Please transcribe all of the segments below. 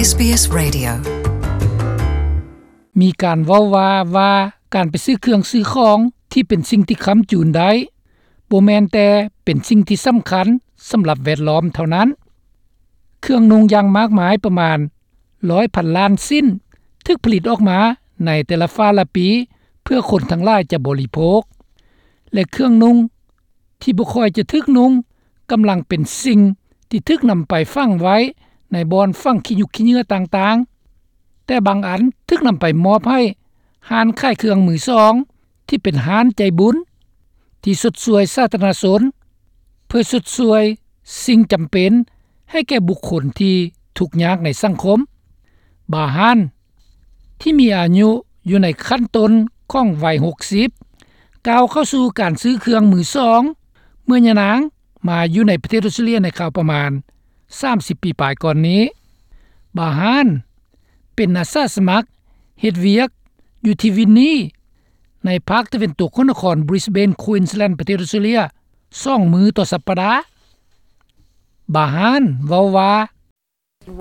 ເອສບີເອສ Radio. ມີການເວົ້າວ່າ ວ່າການໄປຊື້ເຄື່ອງຊື້ຂອງທີ່ເປັນສິ່ງທີ່ຄ້ຳຈູນໄດ້ ບໍ່ແມ່ນແຕ່ເປັນສິ່ງທີ່ສຳຄັນສຳລັບແວດລ້ອມເທົ່ານັ້ນ. ເຄື່ອງນຸ່ງຢ່າງມາກມາຍປະມານຮ້ອຍພັນລ້ານຊິ້ນ ຖືກຜະລິດອອກມາໃນແຕ່ລະຟ້າລະປີ ເພື່ອຄົນທັງຫຼາຍຈະບໍລິໂພກ ແລະ ເຄື່ອງນຸ່ງທີ່ບໍ່ຄ່ອຍຈະຖືກນຸ່ງ ກຳລັງເປັນສິ່ງທີ່ຖືກນຳໄປຝັງໄວ້ໃນບ່ອນຝັງຂີ້ຫຍຸກຂີ້ເຫຍື້ອຕ່າງໆ, ແຕ່ບາງອັນຖືກນຳໄປມອບໃຫ້ຮ້ານຂາຍເຄື່ອງມືສອງ ທີ່ເປັນຮ້ານໃຈບຸນ ທີ່ຊົດຊ່ວຍສາທາລະນະຊົນ ເພື່ອຊົດຊ່ວຍສິ່ງຈຳເປັນໃຫ້ແກ່ບຸກຄົນທີ່ທຸກຍາກໃນສັງຄົມ. ບາຮານ ທີ່ມີອາຍຸຢູ່ໃນຂັ້ນຕົ້ນຂອງໄວຫົກສິບ ກ້າວເຂົ້າສູ່ການຊື້ເຄື່ອງມືສອງ ເມື່ອຍານາງມາຢູ່ໃນປະເທດອອສເຕຣເລຍໃນຄາວປະມານສາມສິບປີປາຍກ່ອນນີ້. ບາຮານ ເປັນອາສາສະໝັກເຮັດວຽກຢູ່ທີ່ວິນນີ ໃນພາກຕາເວັນຕົກຂອງນະຄອນບຣິສເບນ ຄວີນສແລນ ປະເທດອອສເຕຣເລຍ ສອງມື້ຕໍ່ສັບປະດາ. ບາຮານ ເວົ້າວ່າ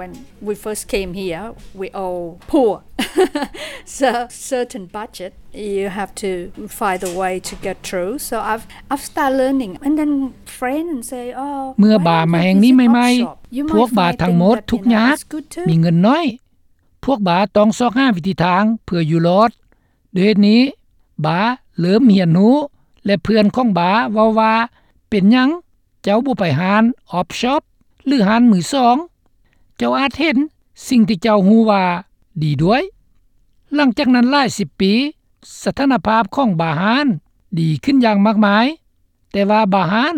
When we first came here, we all poor. So, certain budget, you have to find a way to get through. So I've, I've started learning. And then friends say, "Oh, ເມື່ອບາມາແຫ່ງນີ້ໃໝ່ໆ ພວກບາທັງໝົດທຸກຍາກ ມີເງິນໜ້ອຍ. ພວກບາຕ້ອງຊອກຫາວິທີທາງເພື່ອຢູ່ລອດ. ດ້ວຍເຫດນີ້ ບາເລີ່ມຮຽນຮູ້ ແລະ ເພື່ອນຂອງບາເວົ້າວ່າ ເປັນຫຍັງເຈົ້າບໍ່ໄປຮ້ານອອບຊັອບ ຫຼື ຮ້ານມືສອງ? ເຈົ້າອາດເຫັນສິ່ງທີ່ເຈົ້າຮູ້ວ່າດີດ້ວຍ." ຫຼັງຈາກນັ້ນຫຼາຍສິບປີ ສະຖານະພາບຂອງບາຮານດີຂຶ້ນຢ່າງມາກມາຍ, ແຕ່ວ່າບາຮານ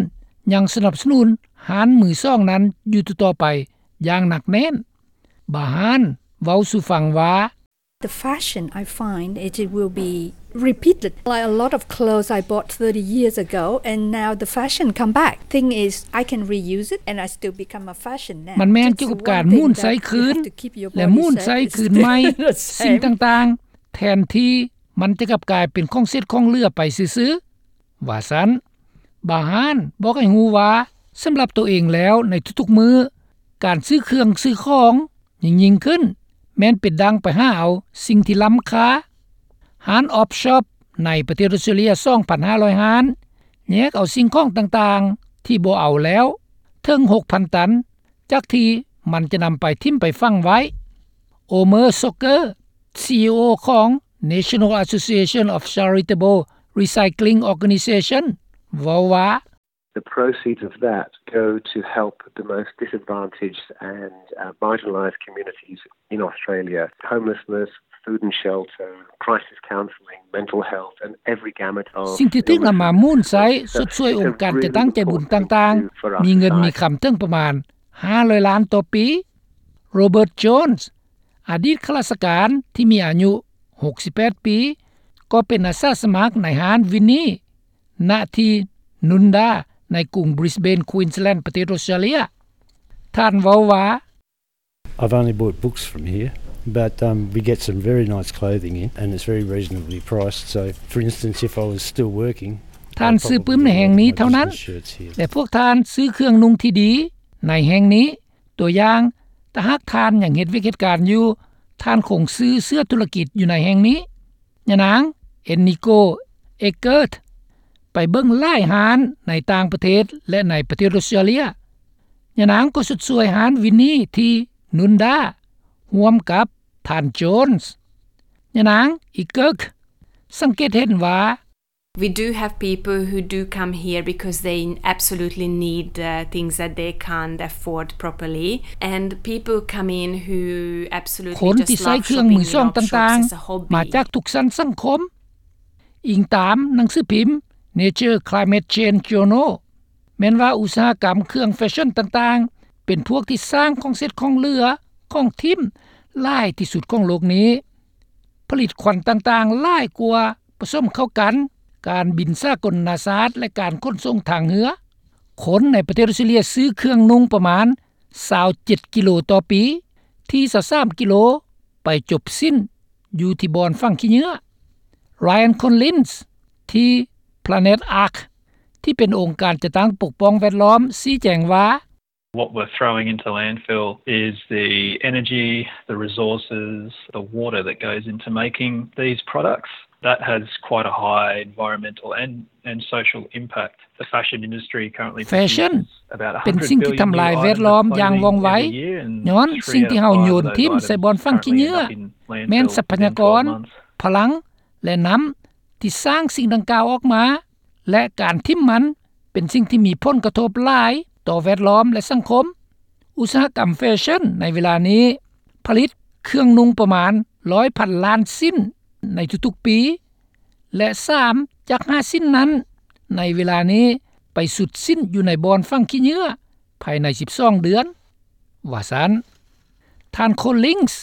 ຍັງສະໜັບສະໜູນຮ້ານມືສອງນັ້ນຢູ່ຕໍ່ໆໄປຢ່າງໜັກແໜ້ນ. ບາຮານເວົ້າສູ່ຟັງວ່າ The fashion, I find it, it will be repeated. Like a lot of clothes I bought thirty years ago, and now the fashion come back. Thing is, I can reuse it, and I still become a fashion now. ມັນແມ່ນກ່ຽວກັບການໝູນໃຊ້ຄືນ ແລະ ໝູນໃຊ້ຄືນໃໝ່ສິ່ງຕ່າງໆ ແທນທີ່ມັນຈະກັບກາຍເປັນຂອງເສດຂອງເຫຼືອໄປຊື່ໆ ວ່າຊັ້ນ. ບາຮານບອກໃຫ້ຮູ້ວ່າ ສຳລັບໂຕເອງແລ້ວ ໃນທຸກໆມື້ ການຊື້ເຄື່ອງຊື້ຂອງ ຍິ່ງໆຂຶ້ນ ແມ່ນເປັນດັ່ງໄປຫາເອົາສິ່ງທີ່ລ້ຳຄ່າ. ຮ້ານອອບຊັອບໃນປະເທດອອສເຕຣເລຍ ສອງພັນຫ້າຮ້ອຍຮ້ານ ແຍກເອົາສິ່ງຂອງຕ່າງໆທີ່ບໍ່ເອົາແລ້ວ ເຖິງຫົກພັນຕັນ ຈາກທີ່ມັນຈະນຳໄປຖິ້ມໄປຝັງໄວ້. ໂອເມີ ຊັອກເກີ ຊີອີໂອ ຂອງ National Association of Charitable Recycling Organization ເວົ້າວ່າ The proceeds of that go to help the most disadvantaged and, uh, marginalized communities in Australia. Homelessness, food and shelter, crisis counselling, mental health, and every gamut of ສິ່ງທີ່ຖືກນຳມາໝູນໃຊ້ຊົດຊ່ວຍອົງການຈັດຕັ້ງໃຈບຸນຕ່າງໆ ມີເງິນມີຄຳເຖິງປະມານຫ້າຮ້ອຍລ້ານຕໍ່ປີ. ໂຣເບີດ ໂຈນສ໌ ອະດີດຂ້າລາຊະການທີ່ມີອາຍຸຫົກສິບແປດປີ ກໍເປັນອາສາສະໝັກໃນຮ້ານວິນນີ ນະທີ່ນຸນດາ ໃນກຸງບຣິສເບນ ຄວີນສແລນ ປະເທດອອສເຕຣເລຍ. ທ່ານເວົ້າວ່າ I've only bought books from here, but, um, we get some very nice clothing in, and it's very reasonably priced. So, for instance, if I was still working, ທ່ານຊື້ປຶ້ມໃນແຫ່ງນີ້ເທົ່ານັ້ນ ແລະ ພວກທ່ານຊື້ເຄື່ອງນຸ່ງທີ່ດີໃນແຫ່ງນີ້. ຕົວຢ່າງ, ຖ້າຫາກທ່ານຍັງເຮັດວຽກເຮັດການຢູ່, ທ່ານຄົງຊື້ເສື້ອທຸລະກິດຢູ່ໃນແຫ່ງນີ້. ຍານາງ ເອັນນິໂກ ເອເກີດ ໄປເບິ່ງຫຼາຍຮ້ານໃນຕ່າງປະເທດ ແລະ ໃນປະເທດອອສເຕຣເລຍ. ຍານາງກໍຊົດຊ່ວຍຮ້ານວິນນີທີ່ນຸນດາ ຮ່ວມກັບທ່ານ ໂຈນສ໌. ຍານາງ ເອເກີດ ສັງເກດເຫັນວ່າ We do have people who do come here because they absolutely need, uh, things that they can't afford properly, and people come in who absolutely just love shopping in op shops as a hobby. ຄົນທີ່ໃຊ້ເຄື່ອງມືສອງຕ່າງໆ ມາຈາກທຸກຊັ້ນສັງຄົມ, ອີງຕາມໜັງສືພິມ Nature Climate Change Journal. ແມ່ນວ່າອຸດສາຫະກຳເຄື່ອງແຟຊັ່ນຕ່າງໆ ເປັນພວກທີ່ສ້າງຂອງເສດຂອງເຫຼືອ ຂອງຖິ້ມຫຼາຍທີ່ສຸດຂອງໂລກນີ້, ຜະລິດຄວັນຕ່າງໆຫຼາຍກວ່າ ປະສົມເຂົ້າກັນ, ການບິນສາກົນນານາຊາດ ແລະ ການຂົນສົ່ງທາງເຮືອ. ຄົນໃນປະເທດອອສເຕຣເລຍຊື້ເຄື່ອງນຸ່ງປະມານຊາວເຈັດກິໂລຕໍ່ປີ, ທີ່ຊາວສາມກິໂລໄປຈົບສິ້ນຢູ່ທີ່ບ່ອນຝັງຂີ້ເຫຍື້ອ. ຣາຍອັນ ຄອນລິນສ໌ ທີ່ Planet Ark ທີ່ເປັນອົງການຈັດຕັ້ງປົກປ້ອງແວດລ້ອມ ຊີ້ແຈງວ່າ What we're throwing into landfill is the energy, the resources, the water that goes into making these products. That has quite a high environmental and, and social impact. The fashion industry currently produces about a hundred billion new items of clothing every year, and three out of five of those items currently end up in landfill and end up in landfills. ແຟຊັ່ນ ເປັນສິ່ງທີ່ທຳລາຍແວດລ້ອມຢ່າງວ່ອງໄວ, ຍ້ອນສິ່ງທີ່ເຮົາໂຍນຖິ້ມໃສ່ບ່ອນຝັງຂີ້ເຫຍື້ອ, ແມ່ນຊັບພະຍາກອນ, ພະລັງ ແລະ ນ້ຳ ທີ່ສ້າງສິ່ງດັ່ງກ່າວອອກມາ ແລະ ການຖິ້ມມັນເປັນສິ່ງທີ່ມີຜົນກະທົບຫຼາຍຕໍ່ແວດລ້ອມ ແລະ ສັງຄົມ. ອຸດສາຫະກຳແຟຊັ່ນໃນເວລານີ້ຜະລິດເຄື່ອງນຸ່ງປະມານຮ້ອຍພັນລ້ານຊິ້ນໃນທຸກໆປີ ແລະ ສາມຈາກຫ້າຊິ້ນນັ້ນໃນເວລານີ້ໄປສຸດສິ້ນຢູ່ໃນບ່ອນຝັງຂີ້ເຫຍື້ອພາຍໃນສິບສອງເດືອນ ວ່າຊັ້ນ. ທ່ານ Collins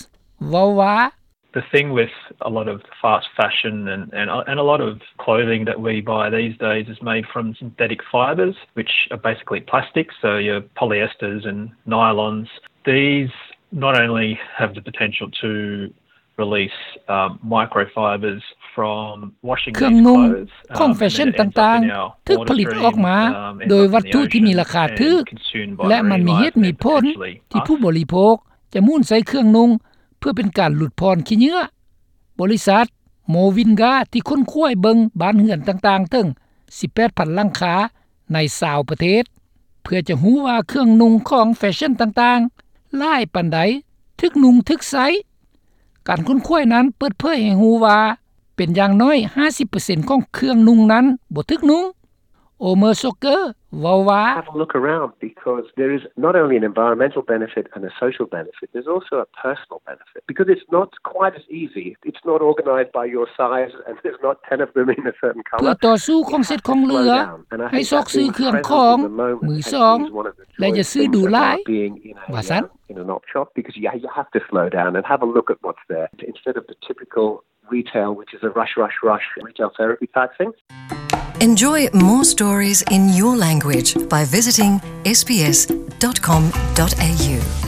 ເວົ້າວ່າ The thing with a lot of fast fashion and, and, and a lot of clothing that we buy these days is made from synthetic fibres, which are basically plastic, so your polyesters and nylons. These not only have the potential to release, um, microfibres from washing these clothes, um, and they end up in our water stream, um, and they end up in the ocean, and consumed by marine life eventually. ເຄື່ອງນຸ່ງຂອງແຟຊັ່ນຕ່າງໆຖືກຜະລິດອອກມາໂດຍວັດຖຸທີ່ມີລາຄາຖືກ ແລະ ມັນມີເຫດມີຜົນທີ່ຜູ້ບໍລິໂພກຈະໝູນໃສ່ເຄື່ອງນຸ່ງ ເພື່ອເປັນການຫຼຸດຜ່ອນຂີ້ເຫຍື້ອ. ບໍລິສັດ Movinga ທີ່ຄົ້ນຄວ້າເບິ່ງບ້ານເຮືອນຕ່າງໆເຖິງສິບແປດພັນຫຼັງຄາໃນຊາວປະເທດ ເພື່ອຈະຮູ້ວ່າເຄື່ອງນຸ່ງຂອງແຟຊັ່ນຕ່າງໆຫຼາຍປານໃດຖືກນຸ່ງຖືກໃຊ້. ການຄົ້ນຄວ້ານັ້ນເປີດເຜີຍໃຫ້ຮູ້ວ່າ ເປັນຢ່າງໜ້ອຍຫ້າສິບເປີເຊັນຂອງເຄື່ອງນຸ່ງນັ້ນບໍ່ຖືກນຸ່ງ. Omer Soker ເວົ້າວ່າ Have a look around, because there is not only an environmental benefit and a social benefit, there's also a personal benefit, because it's not quite as easy. It's not organised by your size, and there's not ten of them in a certain colour. ເພື່ອຕໍ່ສູ້ຂອງເສດຂອງເຫຼືອ ໃຫ້ຊອກຊື້ເຄື່ອງຂອງມືສອງ ແລະ ຢ່າຊື້ດູຫຼາຍ ວ່າຊັ້ນ. In an op shop, because you, you have to slow down and have a look at what's there instead of the typical retail, which is a rush, rush, rush retail therapy type thing. Enjoy more stories in your language by visiting S B S dot com dot A U.